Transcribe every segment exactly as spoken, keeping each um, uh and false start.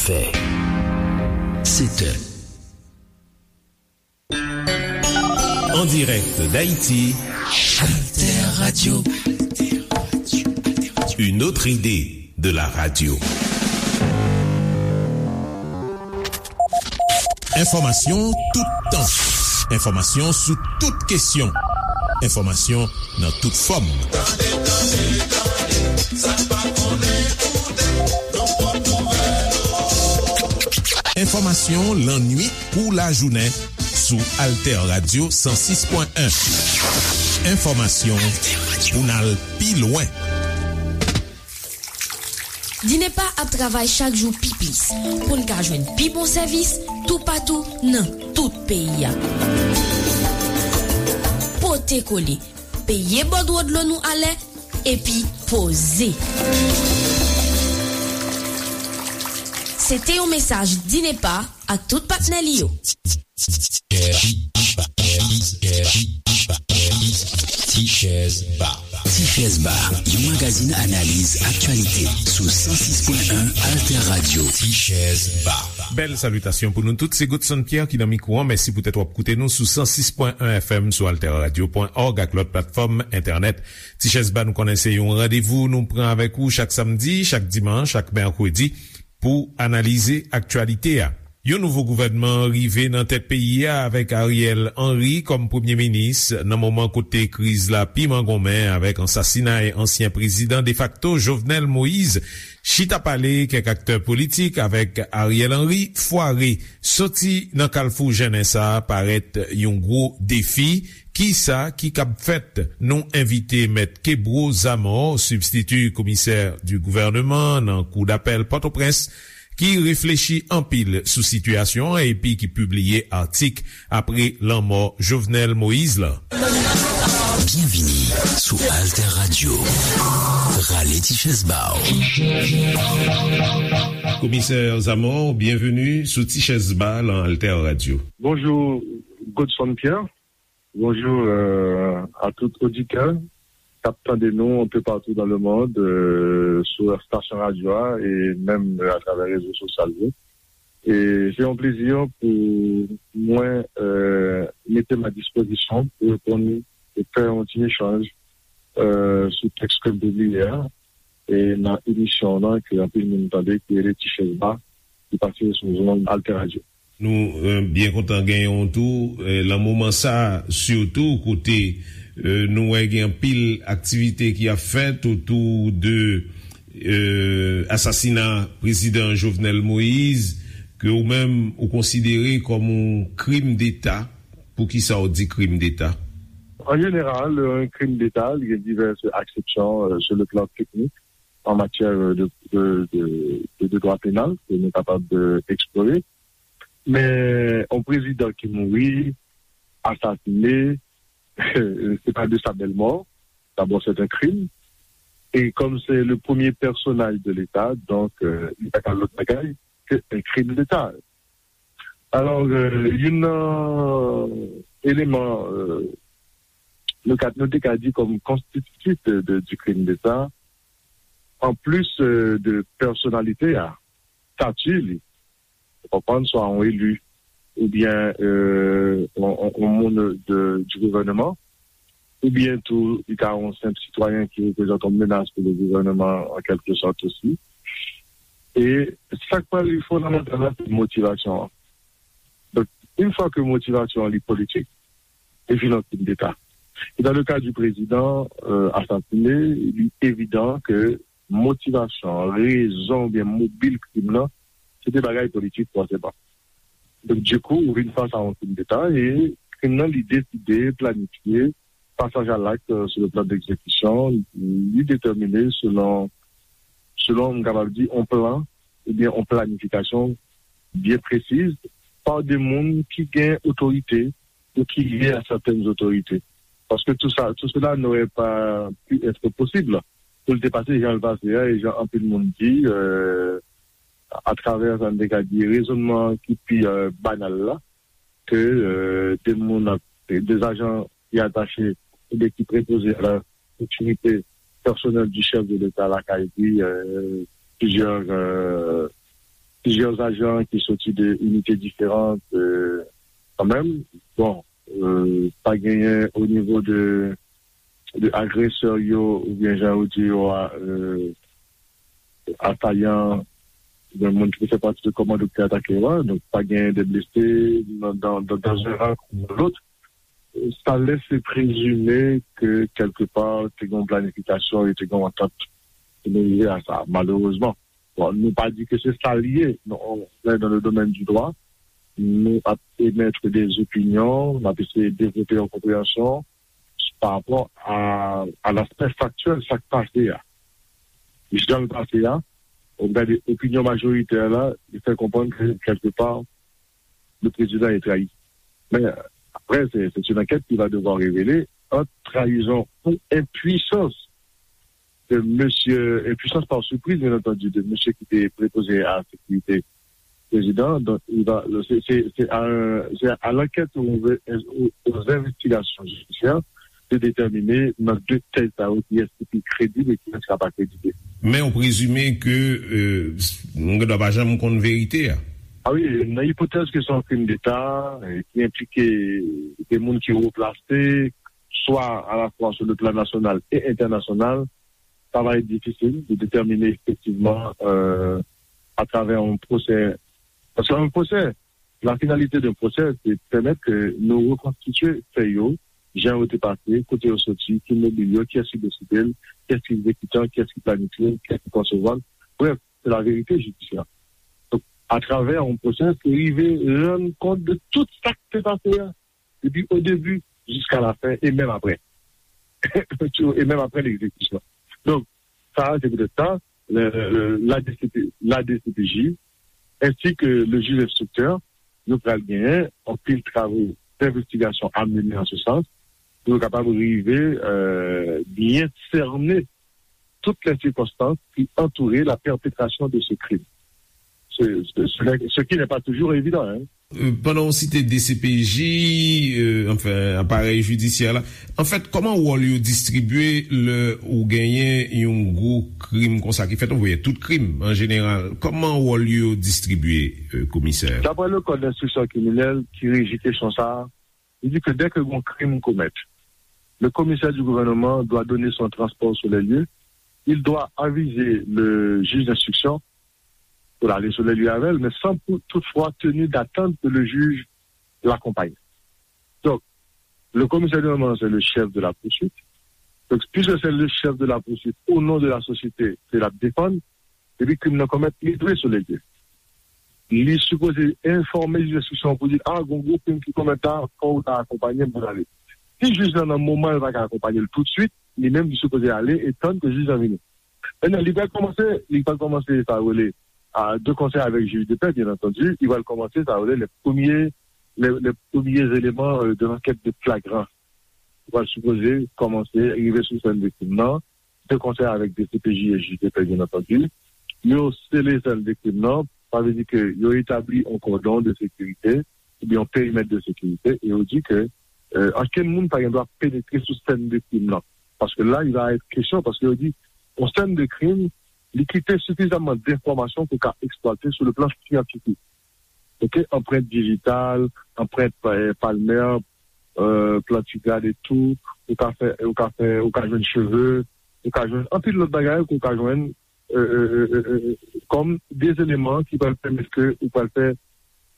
Fè. Sèt è. En direct d'Haïti, Alter Radio. Une autre idée de la radio. Enfòmasyon toutan. Enfòmasyon sou tout kesyon. Enfòmasyon nan tout fòm. Tande, tande, tande, sa pa konnen koute, nan pòt nouvèl. Enfòmasyon lannuit kou lajounen sou Alter Radio san sis pwen en. Enfòmasyon pou n al pi lwen. Dinepa ap travay chak jou pi plis pou n ka jwenn pi bon sèvis toupatou nan tout peyi a. Pote kole, peye bòdwo dlo nou alè, epi poze. Se te yon mesaj Dinepa ak tout patnè li yo. Tichèz Ba. Tichèz Ba, yon magazin analiz aktyalite sou san sis pwen en Alter Radio. Tichèz Ba. Bèl salitasyon pou nou tout. Se Godson Pierre ki nan mikwo an. Mèsi poutèt w ap koute nou sou san sis pwen en F M, sou alterradio pwen org ak lòt platfòm entènèt. Tichèz Ba, nou konnen se yon randevou nou pran avèk ou chak samdi, chak dimanch, chak mèkredi pou analize aktyalite a. Yon nouvo gouvènman rive nan tèt peyi a avèk Ariel Henry kòm premye minis nan moman kote kriz la pi mangonmen avèk ansasinay ansyen prezidan defakto Jovenel Moïse. Chita pale kèk aktè politik avèk Ariel Henry fware. Soti nan kalfou jennen sa a parèt yon gwo defi. Kisa ki kab fèt? Nou envite Mèt Kebro Zamor, sibstiti komisè di gouvèneman nan Kou dapèl Pòtoprens, ki reflechi anpil sou sitiyasyon an epi ki pibliye atik apre lanmò Jovenel Moïse la. Byenvini sou Alter Radio. Rale ti chèz ba w. Komisè Zamor, byenveni sou Ti Chèz Ba nan Alter Radio. Bonjou, Godson Pierre. Bonjou, euh, a tout oditè k ap tande nou un peu partout dans le monde, euh, sou estasyon radyo a e menm, euh, atravè rezo sosyal yo. E se yon plezi pou mwen, euh, mete m a dispozisyon pou reponn e fè yon ti echanj, euh, sou tèks ke m pibliye a, e nan emisyon w lan ke anpil moun tande, ki rele Ti Chèz Ba, ki pase sou zonn Alter Radio. Nou, euh, byen kontan genyen w tou, euh, nan moman sa a, sitou kote, euh, nou wè gen anpil aktivite ki ap fèt otou de, euh, asasina prezidan Jovenel Moïse, ke ou menm ou konsidere kòm yon krim deta. Poukisa w di krim deta? An jeneral, yon krim deta, li gen divès aksepsyon, euh, sur le plan technique, an matyè, euh, de, de, de, de, de dwa penal, ke nou kapab, euh, eksplore. Men, yon prezidan ki mouri, asasine, se pa de sa bèl mò. D'abord, c'est un crime. Et comme c'est le premier personnage de l'État, donc, euh, li pa ka lòt bagay ke un crime d'État. Alò, euh, youn nan eleman, euh, nou ka, nou te ka di kòm konstititif de, de, du crime d'État, an plis, euh, de pèsonalite a, stati li, ou konprann, swa yon eli, oubyen, euh, yon, yon, yon moun de, du gouvèneman, oubyen tou, li ka yon senp sitwayen ki reprezante yon menas pou le gouvèneman, an kèlke sòt osi. E sa k pral fondamantal la, se motivasyon an. Donk, yon fwa ke motivasyon an li politik, li vin yon krim deta. E dans le cas du président, euh, assassiné, li evidan ke motivasyon, rezon oubyen mobil krim nan, se te bagay politik fòseman. Donk, dikou, ou vin fas a yon krim deta e krim nan, li deside, planifye, pasaj a lakt, euh, sur le plan d'exécution, li detèmine selon, selon, m kapab di, yon plan oubyen yon planifikasyon byen presiz pa de moun ki gen otorite ou ki lye a sètèn otorite. Paske tout sa, tout cela n'aurait pas pu être possible pou l te pase jan l pase a, e jan anpil moun di, euh, atravè sa n te ka di rezonnman ki pi, euh, banal la, ke, euh, de moun ap, de ajan ki atache oubyen ki prepoze à la sécurité personnelle du chef de l'État lakay li, euh, plizyè, euh, plizyè ajan ki soti de inite diferan, euh, kanmenm. Bon, euh, pa genyen o nivo de, de agresè yo, oubyen jan yo di yo a, euh, atayan, oubyen moun ki fè pati de kòmando ki atake yo a. Donk, pa genyen de blese nan, dans, dans, dans un rang ou dans l'autre. Sa lèse prezime ke kèlkepa te gen yon planifikasyon e te gen yon antant pou nou rive a sa, malerezman. Bon, nou pa di ke se sa l ye, non, on est dans le domaine du droit, nou ap emèt de opinyon, n ap eseye devlope yon konpreyansyon pa rapò a, a l'aspect factuel, sa k pase a. Jan l pase a, ou gade opinyon majoritè la, li fè konprann ke kèlkepa, le président est trahi. Men, apre, se, se yon ankèt ki va devwa revele ant trayizon ou enpwisans de mesye, enpwisans pa sipriz, byen antandi, de mesye ki te prepoze a sekirite prezidan. Donk, li va, se, se, se a, se a l'ankèt ou, ou, aux investigations judiciaires de déterminer nan de tèz sa yo kiyès ki pi kredib e kiyès ki pa kredib. Men ou prezime ke, euh, nou gen dwa pa janm konn verite a. A wi, nan ipotèz ke se yon krim deta, eh, ki enplike de moun ki wo plase, swa alafwa sou le plan nasyonal e entènasyonal, sa va èt difisil de detèmine efektivman, euh, atravè yon pwosè. Paske yon pwosè, la finalité d'un procès, se pèmèt ke nou rekonstitye fè yo, jan yo te pase, kote yo soti, ki mobil yo, kiyès ki deside l, kiyès ki egzekitan, kiyès ki planifye l, kiyès ki konsevwa l. Brèf, se la verite jidisyè. Donk, atravè yon pwosè, se rive rann kont de tout sa k te pase a, depi o debi jiska la fen, e menm apre. E menm apre legzekisyon. Donk, sa, se poutèt sa, le, le, le, la D C P, la D C P J, ensi ke le jij enstriktè, nou pral genyen anpil travo denvestigasyon a mennen an se sans, pou yo kapab rive, euh, byen sènen tout les circonstances qui entouraient la perpétration de ce crime. Ce, ce, ce n'est- ce qui n'est pas toujours évident, hein. Euh, pandan w site D C P J, euh, anfen, aparèy jidisyè la, anfèt, kòman wòl yo distribye lè ou genyen yon gwo krim konsa ki fèt? Ou voye tout krim, an jeneral. Kòman wòl yo distribye, euh, komisè? D'après le code d'instruction criminelle ki reji kesyon sa a, il dit que dès que gon crime commet, le commissaire du gouvernement doit donner son transport sur les lieux, il doit aviser le juge d'instruction pou l ale sou les lieux avè l, men san pou, toutfwa tenu d'attendre que le juge l'accompagne. Donk, le commissaire du gouvernement, c'est le chef de la poursuite. Donk, puisque c'est le chef de la poursuite, au nom de la société, se l ap defann, epi krim nan komèt, li dwe sou les lieux. Li sipoze enfòme jij enstriksyon pou di, a, gon gwo krim ki komèt la, fò w ta akonpanye m pou n ale. Si jij lan nan moman l pa ka akonpanye l toutswit, li menm li sipoze ale e tann ke jij lan vini. Mentnan, li pral kòmanse, li pral kòmanse sa yo rele, a, de concert avec juge de paix, bien entendu, li pral kòmanse sa yo rele les premiers, les, les premiers éléments, euh, de l'enquête de flagrance. Li pral sipoze kòmanse rive sou sèn de krim nan, de concert avec D C P J et juge de paix, bien entendu. Yo sele sèn de krim nan, sa vle di ke yo etabli yon kòdon de sekirite, oubyen yon perimèt de sekirite, e yo di ke, euh, ankenn moun pa gen dwa penetre sou sèn de krim nan. Paske la, il va être question, paske yo di, yon sèn de krim, li kite sifizaman denfòmasyon pou ka eksplwate sou le plan syantifik. Ok, anprent dijital, anprent, euh, palmè, euh, plantigrad e tou, ou ka fè, ou ka fè, ou ka jwenn cheve, ou ka jwenn anpil lòt bagay ke ou ka jwenn, euh, euh, euh, euh, euh, kòm de eleman ki pral pèmèt ke ou pral fè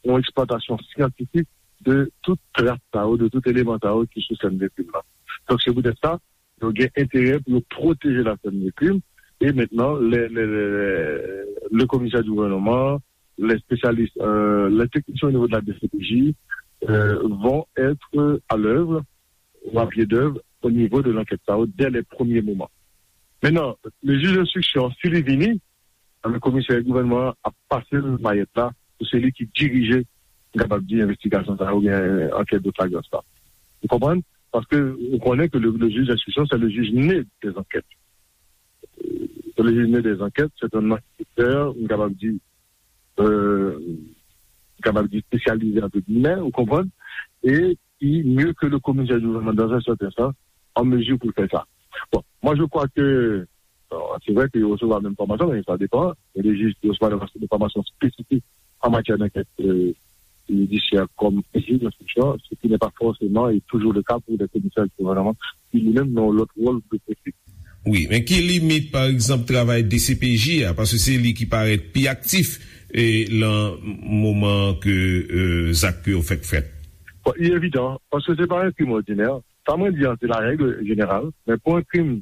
yon eksplwatasyon syantifik de tout tras sa yo, de tout eleman sa yo ki sou sèn de krim nan. Donk, se poutèt sa, yo gen enterè pou yo pwoteje la sèn de krim. E mentnan, le, le, le, le commissaire du gouvernement, les spécialistes, euh, les techniciens au niveau de la D C P J, euh, vont être à l'œuvre ou à pied d'œuvre au niveau de l'enquête sa yo dès les premiers moments. Mentnan, le juge d'instruction, si li vini, anben, komisè gouvènman an ap pase l mayèt la pou se li ki dirije, m kapab di, envestigasyon sa a oubyen ankèt de flagrans la. Ou konprann? Paske ou konnen ke le, le juge d'instruction, c'est le juge né des enquêtes. Euh, c'est le juge né des enquêtes, c'est un enquêteur, m kapab di, euh, m kapab di espesyalize, entre guillemets, ou konprann? E ki, mieux que le commissaire du gouvernement dans un certain sens, en mesure pour faire ça. Bon, moi je crois que Bon, se vre ke yo resevwa menm fòmasyon, men sa depann. Gen de jij ki resevwa de fòmasyon espesifik an matyè dankèt, euh, jidisyè kòm jij enstriksyon, ce qui n'est pas forcément et toujours le cas pour des commissaires du gouvernement, ki li menm nan yon lòt wòl de pwofil. Wi, men ki limit, pa egzanp, travay D C P J a, paske se li ki parèt pi aktif e lan moman ke euh, zak yo fèk fèt? Bon, li evidan, paske se pa yon krim òdinè. Sa mwen di an, se la règle générale, men pou yon krim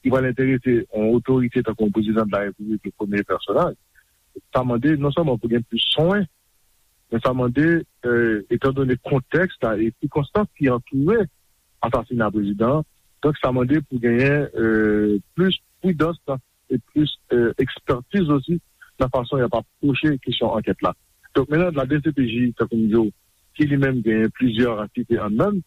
ki pral enterese yon otorite tankou yon prezidan de la repiblik, le premye pèsonaj, sa mande non sèlman pou gen plis swen, men sa mande, euh, etandone kontèks la e sikonstans ki antoure asasina prezidan an, donk sa mande pou genyen euh, plis pridans la e plis euh, ekspertiz osi nan fason y ap apwoche kesyon ankèt la. Donk, menm la D C P J, tankou m di w, ki li menm genyen plizyè antite anndan l,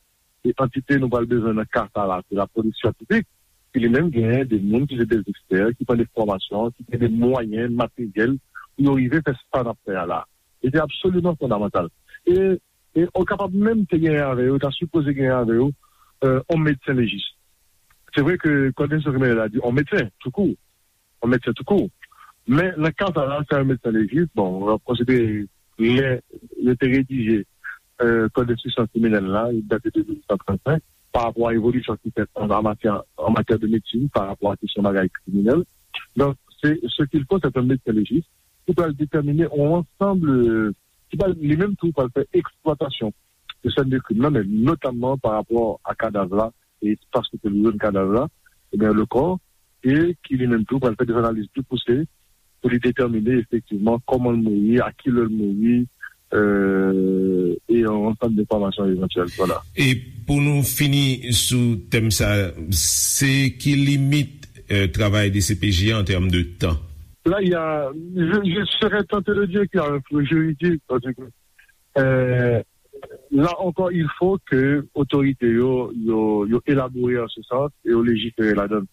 e antite nou pral bezwen nan ka sa la, se la polis syantifik, ki li menm genyen de moun ki se de ekspè, ki pran de fòmasyon, ki gen de mwayen materyèl pou yo rive fè sa n ap fè a la. E se absoliman fondamantal. E, e ou kapab menm te genyen avè yo, ta sipoze genyen avè yo, euh, yon medsen lejis. Se vre ke kòd enstriksyon kriminèl la di yon medsen, toukou, yon medsen toukou. Men nan ka sa la, se yon medsen lejis, bon, w ap konsidere lè yo te redije euh, kòd enstriksyon kriminèl la, li date de mil nèf san trannsenk, pa rapò a evolisyon ki fèt an, an matyè, an matyè de medsin, pa rapò a kesyon bagay kriminèl. Donk, se, ce qu'il faut, c'est un médecin légiste ki pral detèmine yon ansanm, euh, ki pral, li menm tou, pral fè eksplwatasyon de sèn de krim nan, men notamman pa rapò a kadav la, e espas kote yo jwenn kadav la, ebyen, le corps, e ki li menm tou pral fè de analiz pli pouse pou li detèmine efektivman kòman l mouri, a ki lè l mouri, euh, e yon ansanm de enfòmasyon evantyèl. Vwala. E pou nou fini sou tèm sa, se ki limit euh, travay D C P J an tèm de tan? Là, il y a, je, je serais tenté de dire qu'il y a un flou juridique, parce que euh, là encore, il faut que otorite yo, yo, yo elabore an se sans e yo lejifere ladan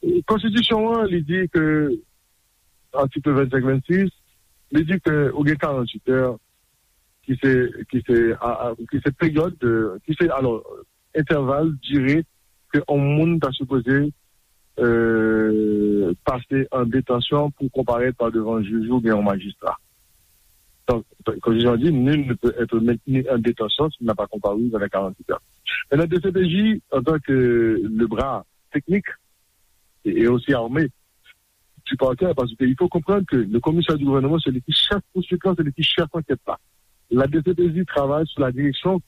l. Konstitisyon an, li di ke, atik vennsenk vennsis, li di ke ou gen karanntuit è ki se, ki se, a, a, ki se peryòd, de, ki se, alò, entèval, dire ke yon moun ta sipoze euh, pase an detansyon pou konparèt pa devan jij oubyen yon majistra. Donk, konstitisyon an di, nul ne peut être maintenu en détention s'il n'a pas comparu dans les quarante-huit heures. Maintenant, D C P J, en tant que le bras technique et, et aussi armé du parquet, parce qu'il faut comprendre que le commissaire du gouvernement, c'est lui qui chef poursuite, c'est lui qui chef enquête là. La D C P J travaille sous la direction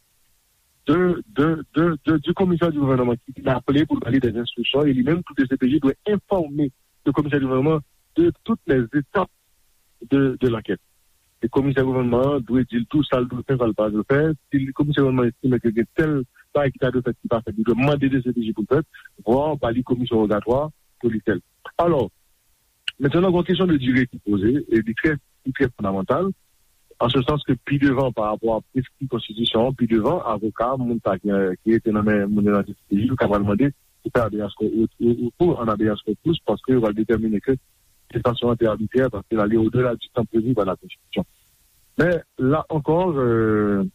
de, de, de, de, du commissaire du gouvernement ki vin aple pou l ba li des instructions, e li menm tou D C P J dwe enfòme le commissaire du gouvernement de toutes les étapes de, de l'enquête. E komisè gouvènman an dwe di l tou sa l dwe fè, sa l pa dwe fè. Si komisè gouvènman an estime ke gen tèl bagay ki ta dwe fèt ki pa fèt, li dwe mande D C P J pou l fèt, vwa ba li komisyon wogatwa pou li fè l. Alò, mentnan, gen yon kesyon de dire ki poze, e li trè, li trè fondamantal, an se sans ke pi devan, pa rapò a preskri konstitisyon an, pi devan, avoka, moun sa ki, ki rete nan men moun yo nan D C P J, yo ka pral mande pou fè habeas co-, ou, ou, ou, ou an habeas corpus, paske yo pral detèmine ke detansyon an te abitrè, paske l ale odela di tan previ pa la Konstitisyon. Men, la ankò, euh,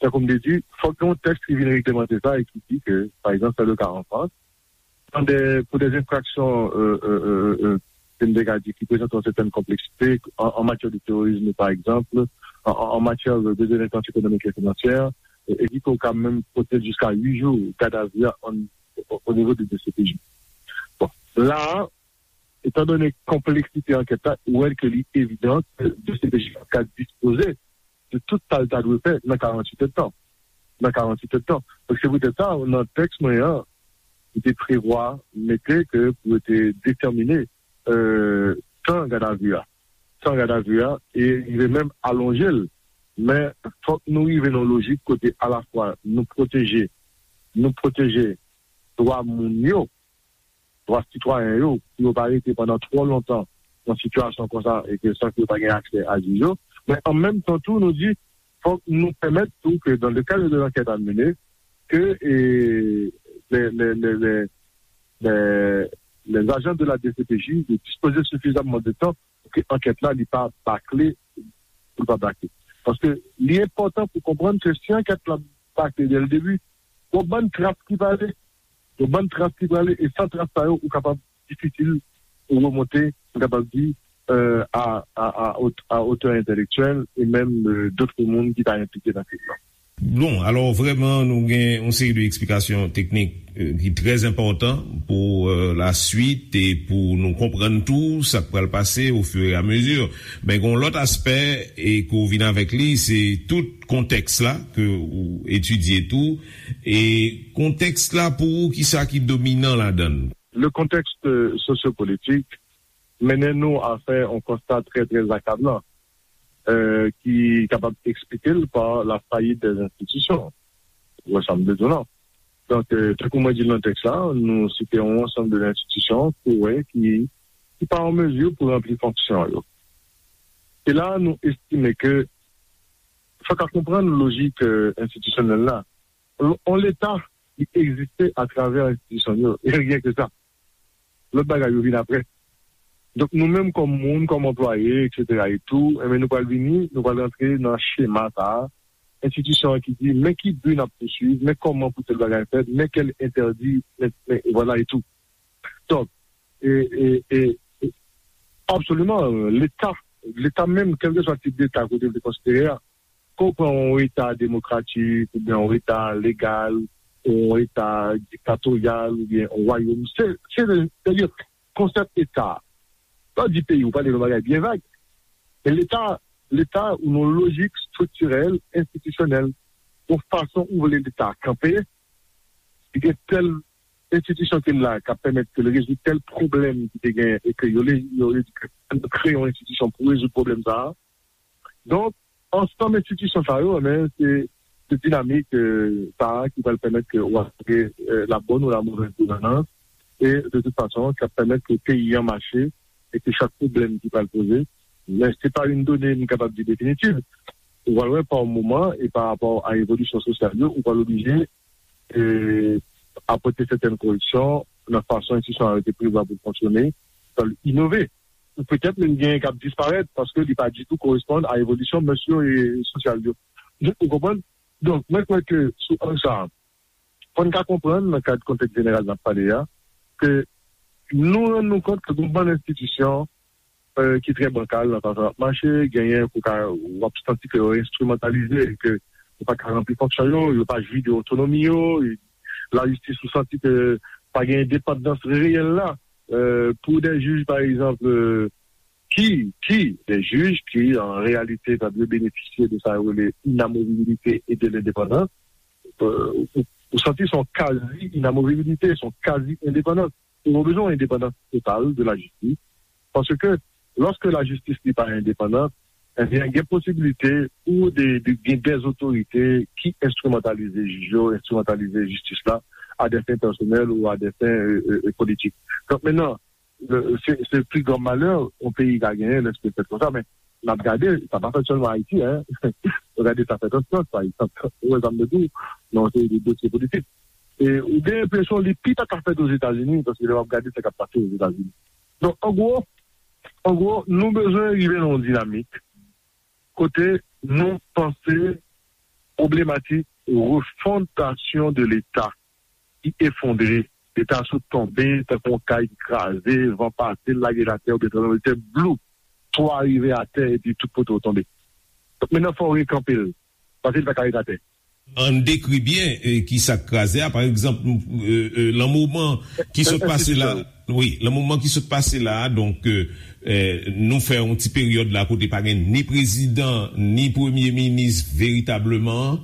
tankou m te di, fòk gen yon tèks ki vin reglemante sa e ki di ke, pa egzanp, se le ka an Frans, dans des, pour des infractions, euh, euh, euh, euh, euh, ke m te ka di, ki prezante yon sètèn konpleksite, an, an matyè de terorizm, pa egzanp, an, an, an matyè de, de delenkwans ekonomik e finansyè, e, e ki ka menm pote jiska uit jou gadavi an, o, o nivo de D C P J. Bon, la, etandone konpleksite ankèt la, ou wè ke li evidan ke D C P J ka dispoze de tout sa l ta dwe fè nan karanntuit èdtan. Nan karanntuit èdtan. Donk, se poutèt sa, nan tèks mwen an, m te prevwa mete ke pou yo te detèmine, euh, tan gadavi a. Tan gadavi a, e rive menm alonje l. Men, fòk nou rive nan lojik kote alafwa nou pwoteje, nou pwoteje dwa moun yo, dwa sitwayen yo, pou yo pa rete pandan twò lontan nan sitiyasyon konsa e ke san ke yo pa gen aksè a jij yo. Men an menm tan tou, nou di, fòk nou pèmèt tou ke dans le cadre de l'enquête à mener, ke, e, les, les, les, les, les, les agents de la D C P J de dispoze sufizamman de tan pou ke ankèt la, li pa bakle, pou l pa bakle. Paske li enpòtan pou konprann ke si ankèt la bakle dès le début, gon bann tras ki prale, gon bann tras ki prale, e san tras sa yo, ou kapab difisil pou remonte, m kapab di, euh, à, à, à, haute- à hauteur intellectuelle et même euh, d'autres moun ki ta enplike nan kriz la. Bon, alò vrèman, nou gen yon seri de eksplikasyon teknik euh, ki trè enpòtan pou euh, la swit e pou nou konprann tou sa k pral pase au fur et à mesure. Men gen yon lòt aspè e ke w vin avèk li, se tout kontèks la ke ou etidye tou. E kontèks la pou ou, ki sa ki dominan ladan l? Le contexte euh, sociopolitique mennen nou a fè yon konsta trè, trè akablan, euh, ki kapab eksplike l pa la fayit dè enstitisyon. Ou wè sa m vle di w la. Donk, euh, tankou mwen di l nan tèks la, nou site yon ansanm de enstitisyon ke w wè ki, ki pa an mezi pou ranpli fonksyon yo. E la, nou estime ke fòk a konprann lojik euh, enstitisyonèl la. On Leta ki egziste atravè enstitisyon yo, e ryen ke sa. Lòt bagay yo vin apre. Donk nou menm kòm moun, kòm anplwaye, et cetera et tout, enben nou pral vini, nou pral rantre nan chema sa a, enstitisyon an ki di men ki bi n ap pouswiv, men kòman pou tèl bagay fèt, men kèl entèdi, men, men vwala et tout. Donk, e, e, e, e, absoliman, Leta, Leta menm, kèlkeswa tip Leta ke w te vle konsidere a, ke w pran yon Eta demokratik, oubyen yon Eta legal, yon Eta diktatoryal, oubyen yon wayòm, se, se, se, konsèp Eta. Lè w di peyi, ou pale yon bagay byen vag. Men Leta, Leta, ou nan lojik estriktirèl, enstitisyonèl, yon fason ou vle Leta kanpe, li gen tèl enstitisyon ki la k ap pèmèt ke l rezoud tèl pwoblèm ki te gen e ke yo, yo, yo kreye yon enstitisyon pou rezoud pwoblèm sa a. Donk, ansanm enstitisyon sa yo, men se, se dinamik euh, sa a ki pral pèmèt ke w ap gen euh, la bonne ou la mauvaise gouvernance e de toute façon, ki ap pèmèt ke peyi an mache e ke chak pwoblèm ki pral poze, men se pa yon done m kapab di definitiv. Ou pral wè pa moman e pa rapò a evolisyon sosyal yo, ou pral oblije e, apòte sètèn koreksyon nan fason enstitisyon an te prevwa pou l fonksyone, pou l inove. Ou petèt menm genyen k ap disparèt paske li pa ditou koresponn a evolisyon mès yo e sosyal yo. Ou konprann? Donk, mwen kwè ke sou ang sa a, fò n ka konprann nan kad kontèks jeneral n ap pale a, ke nou rann nou kont ke gen yon bann enstitisyon euh, ki trè bankal nan fason y ap mache, genyen ke w ka, w ap santi ke yo enstrimantalize e ke yo pa ka ranpli fonksyon yo, yo pa jwi de otonomi yo, e lajistis ou santi ke pa gen endepandans reyèl la euh, pou de jij, pa egzanp, euh, ki, ki, de jij ki, an reyalite, sa dwe benefisye de sa yo rele inamovibilite e de lendepandans, euh, ou, ou santi se yon kazi inamovibilite, se yon kazi endepandans. Ou bezwen yon endepandans total de lajistis. Paske lòske lajistis li pa endepandan, ebyen, gen posibilite pou de, de, gen dèzotorite ki enstrimantalize jij yo, enstrimantalize jistis la, a dè fen pèsonèl ou a dè fen euh, euh, euh, politik. Donk, mentnan, euh, se, se pli gran malè yon peyi ka genyen lèske l fèt konsa, men n ap gade, sa pa fèt sèlman Ayiti, en. Ou gade sa fèt an Frans, pa egzanp. Ou wè sa m vle di w, nan yon seri de dosye politik. E ou gen enpresyon li pi ta ka fèt Ozetazini, paske lè w ap gade sa k ap pase Ozetazini. Donk, an gwo, an gwo, nou bezwen rive nan yon dinamik kote nou panse pwoblematik refondasyon de Leta ki efondre, Leta sot tonbe tankou yon kay ki kraze, van pase, l lage l atè, oubyen tranblemanntè, blou, twa rive atè, epi tout poto tonbe. Donk, mentnan, fò w rekanpe l, paske l pa ka ret atè. Ann dekri byen eh, ki sa k kraze a. Pa egzanp, eh, eh, lan moman ki sot pase la, wi, lan moman ki sot pase la, donk, eh, eh, nou fè yon ti peryòd la kote pa gen ni prezidan, ni premye minis veritableman,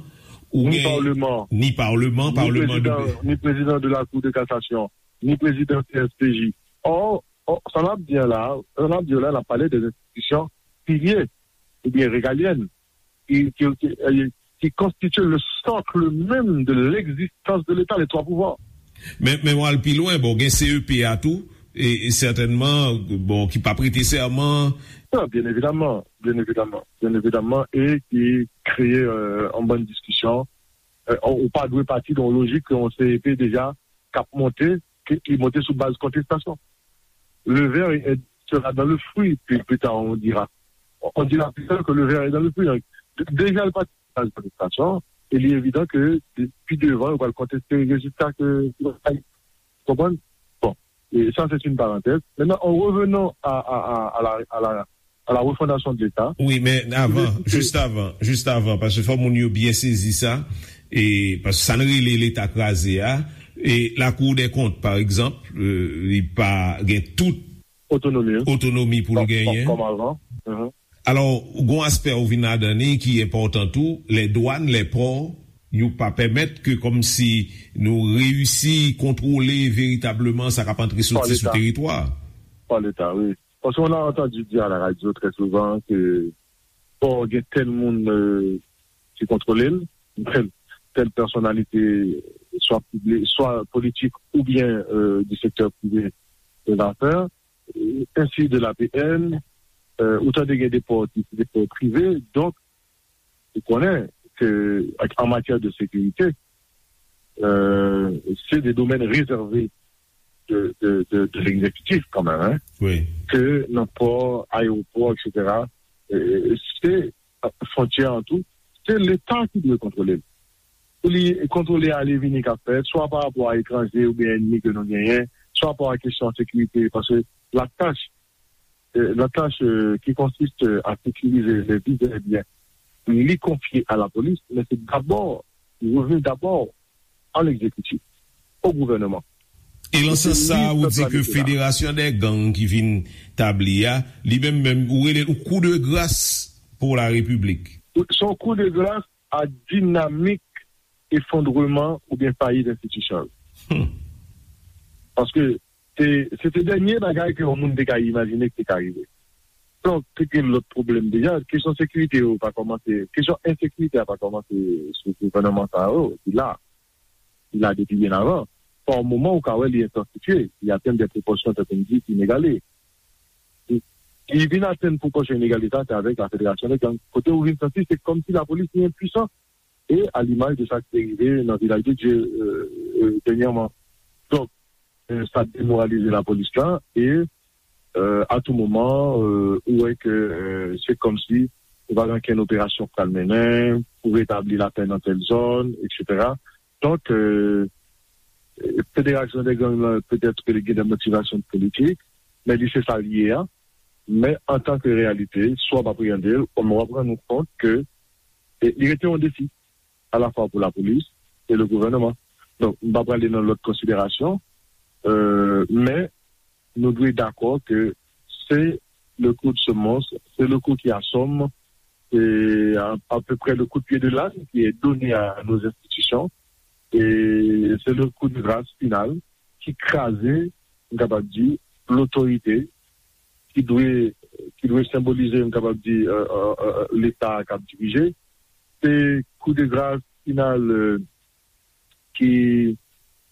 ou Ni gen paleman. Ni paleman, ni paleman de prezidan, ni prezidan de la Cour de cassation, ni prezidan C S P J. Or, or, sa n ap di an la, sa n ap di an la, n ap pale de enstitisyon pilye oubyen regalyèn ki, ki, ki, eh, ki konstitye le socle même de l'existence de l'État, les trois pouvoirs. Men, men w al pi lwen, bon, gen C E P a tou, e, e sètènman, bon, ki pa prete sèman. Non, byen evidaman, byen evidaman, byen evidaman, e ki kreye euh, an bann diskisyon. Euh, ou pa dwe pati nan yon lojik ke yon C E P deja k ap monte, ke, ki monte sou baz kontestasyon. Le ver est, sera dans le fruit, plus, plus tard on dira. On dira plus tard que le ver est dans le fruit. Donk, de- deja l pati sou baz kontestasyon, e li evidan ke de- pi devan, yo pral konteste rezilta ke ki va bay. Konprann? Bon. Et ça, c'est une parenthèse. Maintenant, en revenant à, à, à, à la, à la, à la refondation de l'État, Oui, men avan, jis avan, jis avan, paske fò moun yo byen sezi sa, e paske sa n rele Leta kraze a, e Lakou dè Kont, pa egzanp, euh, li pa gen tout autonomie, hein, otonomi pou l comme, genyen. Comme avant. Mhm. Alò, gon aspè ou vin ladan li ki enpòtan tou, lè dwàn, lè pò, yo pa pèmèt ke kòmsi nou reyisi kontwole veritableman sa k ap antre soti sou teritwa. Par l'État, oui. Parce qu'on a entendu dire à la radio très souvent que bon, il y a tel monde euh, qui contrôle, tel, telle personnalité, soit publique, soit politique ou bien euh, du secteur privé de l'affaire, ainsi de l'A P N, euh, autant de des ports, des ports privés. Donc, vous connaissez que en matière de sécurité, euh, c'est des domaines réservés de, de, de, de l'exécutif quand même, hein, Oui. Que n'importe aéroport, et cetera. Euh, c'est frontière en tout, c'est l'État qui doit contrôler. Pou li kontwole ale vini k ap fèt, swa pa rapò a etranje oubyen ènmi ke nou genyen, swa pa rapò a kesyon sekirite, paske la tach, euh, la tach euh, ki konsiste a sekirize le vivre bien, li konfye a la polis, men se dabò, li reveni dabò a l'exécutif, au gouvernement. E lan sans sa a, ou di ke Federasyon dè Gang ki vin tabli a, li menm menm, ou rele l kou de gras pou la Repiblik. Se yon kou de gras a dinamik efondreman oubyen fayit enstitisyon yo. Paske se se te dènye bagay ke yon moun te ka imajine ki te ka rive. Donk, te gen lòt pwoblèm deja. Kesyon sekirite yo pa kòmanse, kesyon ensekirite a pa kòmanse sou gouvènman sa yo, ki la. Ki la depi byen avan. Pa yon moman ou ka wè li entansifye, li atenn de pwopòsyon tankou m di ki inegale. Li vin atenn pwopòsyon inegale sa, se avèk la federasyon de gang. Kote ou vin santi se kòmsi lapolis li enpwisan. E a limaj de sa ki te rive nan Vilaj de Dye dènyèman. Donk, sa demoralize lapolis la e a tou moman ou wè ke se kòmsi ou pa gen okenn operasyon k pral mennen pou retabli lapè nan tèl zòn, etsetera. Donk, federasyon de gang lan petèt ke li gen de motivasyon politik, men li se sa l ye a. Men antanke reyalite, si w ap apreyande l, w ap rann ou kont ke li rete yon defi alafwa pou lapolis e le gouvènman. Donk, m pa prale nan lòt konsiderasyon, men nou dwe dakò ke se le coup de semonce, c'est le coup qui assomme, c'est à, à peu près le coup de pied de l'âne qui est donné à nos institutions, et c'est le coup de grâce final qui crase, m kapab di, lotorite ki dwe ki dwe senbolize, m kapab di, Leta k ap dirije. Se kou de gras final ki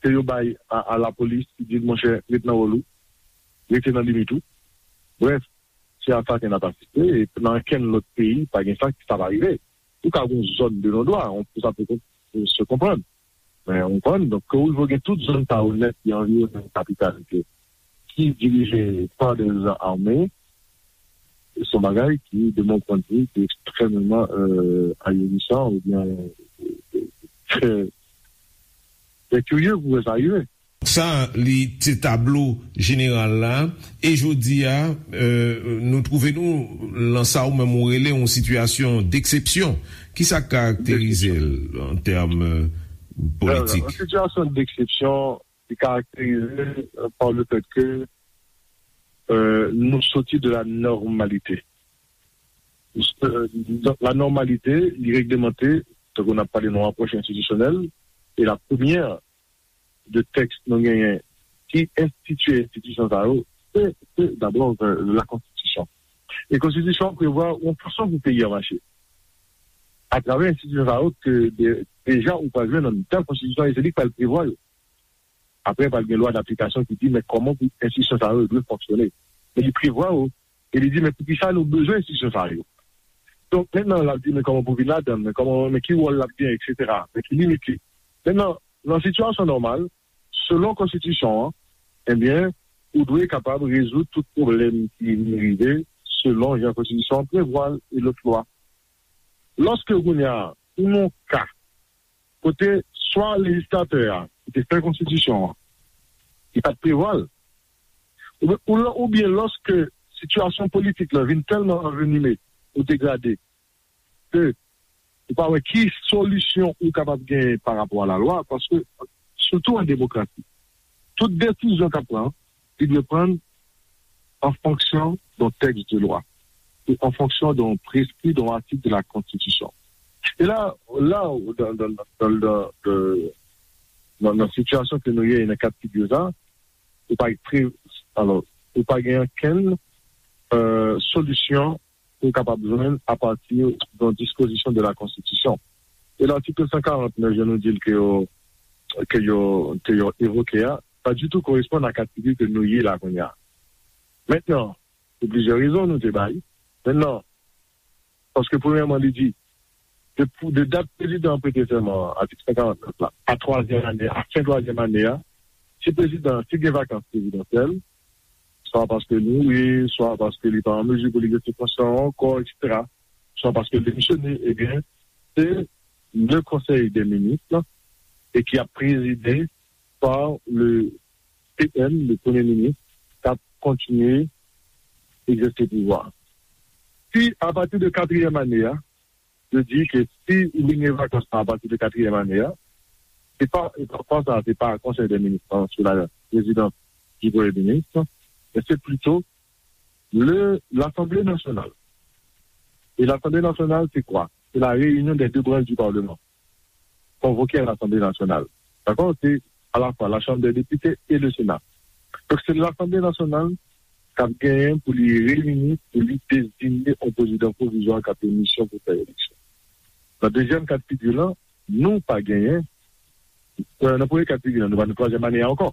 ke yo bay a, a lapolis ki di l, monchè, ret nan wòl ou, rete nan limit ou. Brèf, se a sa ke n ap asiste, e nan okenn lòt peyi, pa gen sa ki sa pa rive. Ou ka gen yon zòn de non dwa, on, sa pe se konprann. Men, ou konprann, donk, ke ou gen tout zòn sa yo nèt ki anviwonnen kapital ki dirije pa de zan ame, se yon bagay ki, de mon pwennvi, ki ekstrèmeman ahirisan oubyen trè, trè kirye pou wè sa rive. Sa, li te tablo jeneral la. E jodi a, nou twouve nou lan sa ou menm ou rele yon sitiyasyon deksepsyon. Kisa k karakterize l an tèm politik? Yon sitiyasyon deksepsyon ki karakterize pa le fèt ke nou soti de la nòmalite. Donk, la nòmalite, li reglemante, tankou n ap pale nan apwòch enstitisyonèl, e la premyè de tèks nou genyen ki enstitye enstitisyon sa yo, se, se dabò la konstitisyon. E konstitisyon an prevwa yon fason pou peyi a mache. Atravè enstitisyon sa yo ke deja ou pral jwenn nan mitan konstitisyon an, e se li k pral prevwa yo. Apre, pral gen lwa daplikasyon ki di men kòman pou enstitisyon sa yo dwe fonksyone. Men li prevwa yo, e li di men poukisa nou bezwen enstitisyon sa yo. Donk, mentnan, l ap di men kòman pou vin ladan l, men kòman, men ki wòl l ap genyen, etsetera, men ki limit li. Mentnan, nan sitiyasyon nòmal, selon konstitisyon an, ebyen, ou dwe kapab rezoud tout pwoblèm ki vin rive selon jan konstitisyon an prevwa l e lòt lwa. Lòske kounye a, ou nan yon ka kote swa lejislatè a ki te fè konstitisyon an, ki pa t prevwa l, Oubyen, ou lò- oubyen lòske sitiyasyon politik la vin tèlman anvenime ou degrade ke ou pa wè ki solisyon ou kapab genyen pa rapò a lalwa, paske, sitou an demokrasi, tout desizyon k ap pran, li dwe pran an fonksyon d'un texte de loi, e an fonksyon d'un prescrit, d'un article de la Constitution. E la, la, dans, dans, dans, dans, dans, dans, dans sitiyasyon ke nou ye, nan ka figi sa, ou pa pre, alò, ou pa gen okenn, euh, solisyon pou w kapab jwenn apati d'un dispozisyon de la Konstitisyon. E l'article cent quarante-neuf, jan nou di l, ke yo, ke yo, ke yo evoke a, pa ditou koresponn a ka figi ke nou ye la kounye a. Mentnan, pou plizyè rezon nou te bay. Mentnan, paske premyèman, li di, de, pou- de dat prezidan an prete sèman an, atik san karant nèf la, a twazyèm ane, a fen twazyèm ane a, si prezidan, si gen vakans prezidansyèl, swa paske li mouri, swa paske li pa an mezi pou li egzèse fonksyon an ankò, etsetera, swa paske li demisyone, ebyen, se le Conseil des ministres e ki ap prezide par le P M, le Premye Minis, k ap kontinye egzèse pouvwa. Si, apati de katriyèm ane a, yo di ke si li gen vakans lan apati de katriyèm ane a, se pa, e pa, pa sa, se pa Konsèy dè Minis lan sou la prezidans di Premye Minis, men se plito le, Lasanble Nasyonal. E Lasanble Nasyonal, se kwa? Se la réunion des deux branches du Parlement. Convoquer à l'Assemblée nationale. Dakò? Se alafwa la Chambre des députés et le Sénat. Donk, se Lasanble Nasyonal k ap genyen pou li reyini, pou li deziye yon prezidan pwovizwa k ap gen misyon pou fè eleksyon. Nan dezyèm ka de figi lan, nou pa genyen, euh, nan premye ka de figi lan, nou pa nan twazyèm ane a ankò.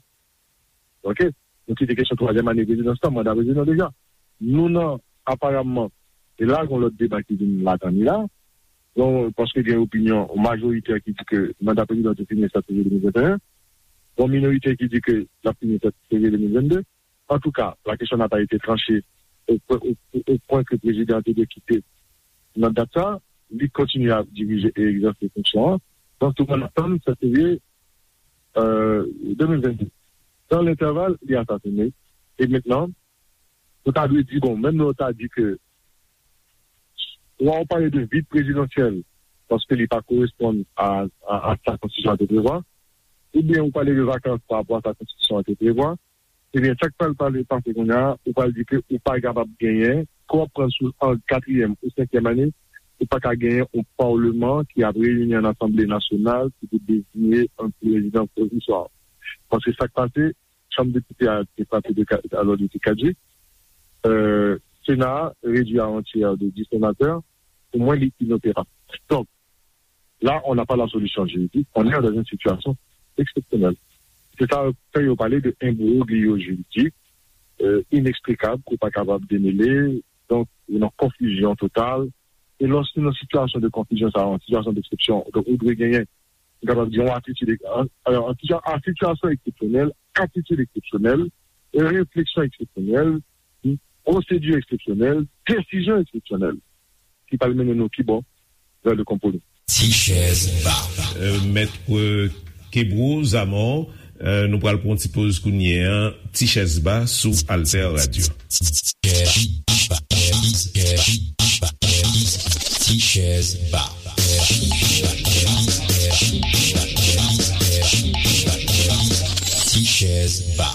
Oke? Nou kite kesyon twazyèm ane prezidans lan, manda prezidan deja. Nou nan, aparamman, e la, gen lòt deba ki vin ladan li la. Bon, paske gen opinyon majorite ki di ke manda prezidan te fini sèt fevriye de mil venteyen. Bon, minorite ki di ke l ap fini sèt fevriye de mil vennde. Antouka, la question n'a pas été tranchée au, au, au point ke prezidan te dwe kite nan dat sa, li kontinye ap dirije e egzèse fonksyon an. Donk, tout moun ap tann sèt fevriye, euh, de mil vennde. Dans l'intervalle, li asasine. E mentnan, nou ta dwe di, bon, menm lè w ta di ke, swa w pale de vid prezidansyèl, paske li pa koresponn a, a, a sa konstitisyon an te prevwa, oubyen w pale de vakans pa rapò a sa konstitisyon an te prevwa, ebyen, sa k pral pale pase kounye a, ou pral di ke ou pa kapab genyen, ke w ap pran sou an katriyèm ou senkyèm ane, ou pa ka genyen yon palman ki ap reyini an Asanble Nasyonal ki pou deziye yon prezidan pwovizwa. Paske sa k pase, Chanm Depite a te frape de ka-, alò, li te kadjik. Euh, Sena a redwi a yon tyè de dis senatè. Pou mwen, li inoperab. Donk, là, on n'a pas la solution juridique, on est dans une situation exceptionnelle. Se sa fè yo pale de imbroglio juridik, euh, ineksplikab, ke w pa kapab demele, donk, ou nan konfizyon total. E lòske nan sitiyasyon de konfizyon sa, an sitiyasyon deksepsyon, donk, ou dwe genyen, nou kapab di, yon atitid, an, an, an sitiyasyon eksepsyonèl, atitid eksepsyonèl, refleksyon eksepsyonèl, pwosedi eksepsyonèl, desizyon eksepsyonèl ki pral mennen nou ki bò? Vè le konpwomi. Ti chèz ba. Euh, Mèt, euh, Kebro Zamò, euh, nou pral pran yon ti poz kounye a. Ti chèz ba sou Alter Radio. Ti chèz ba. Ti chèz ba.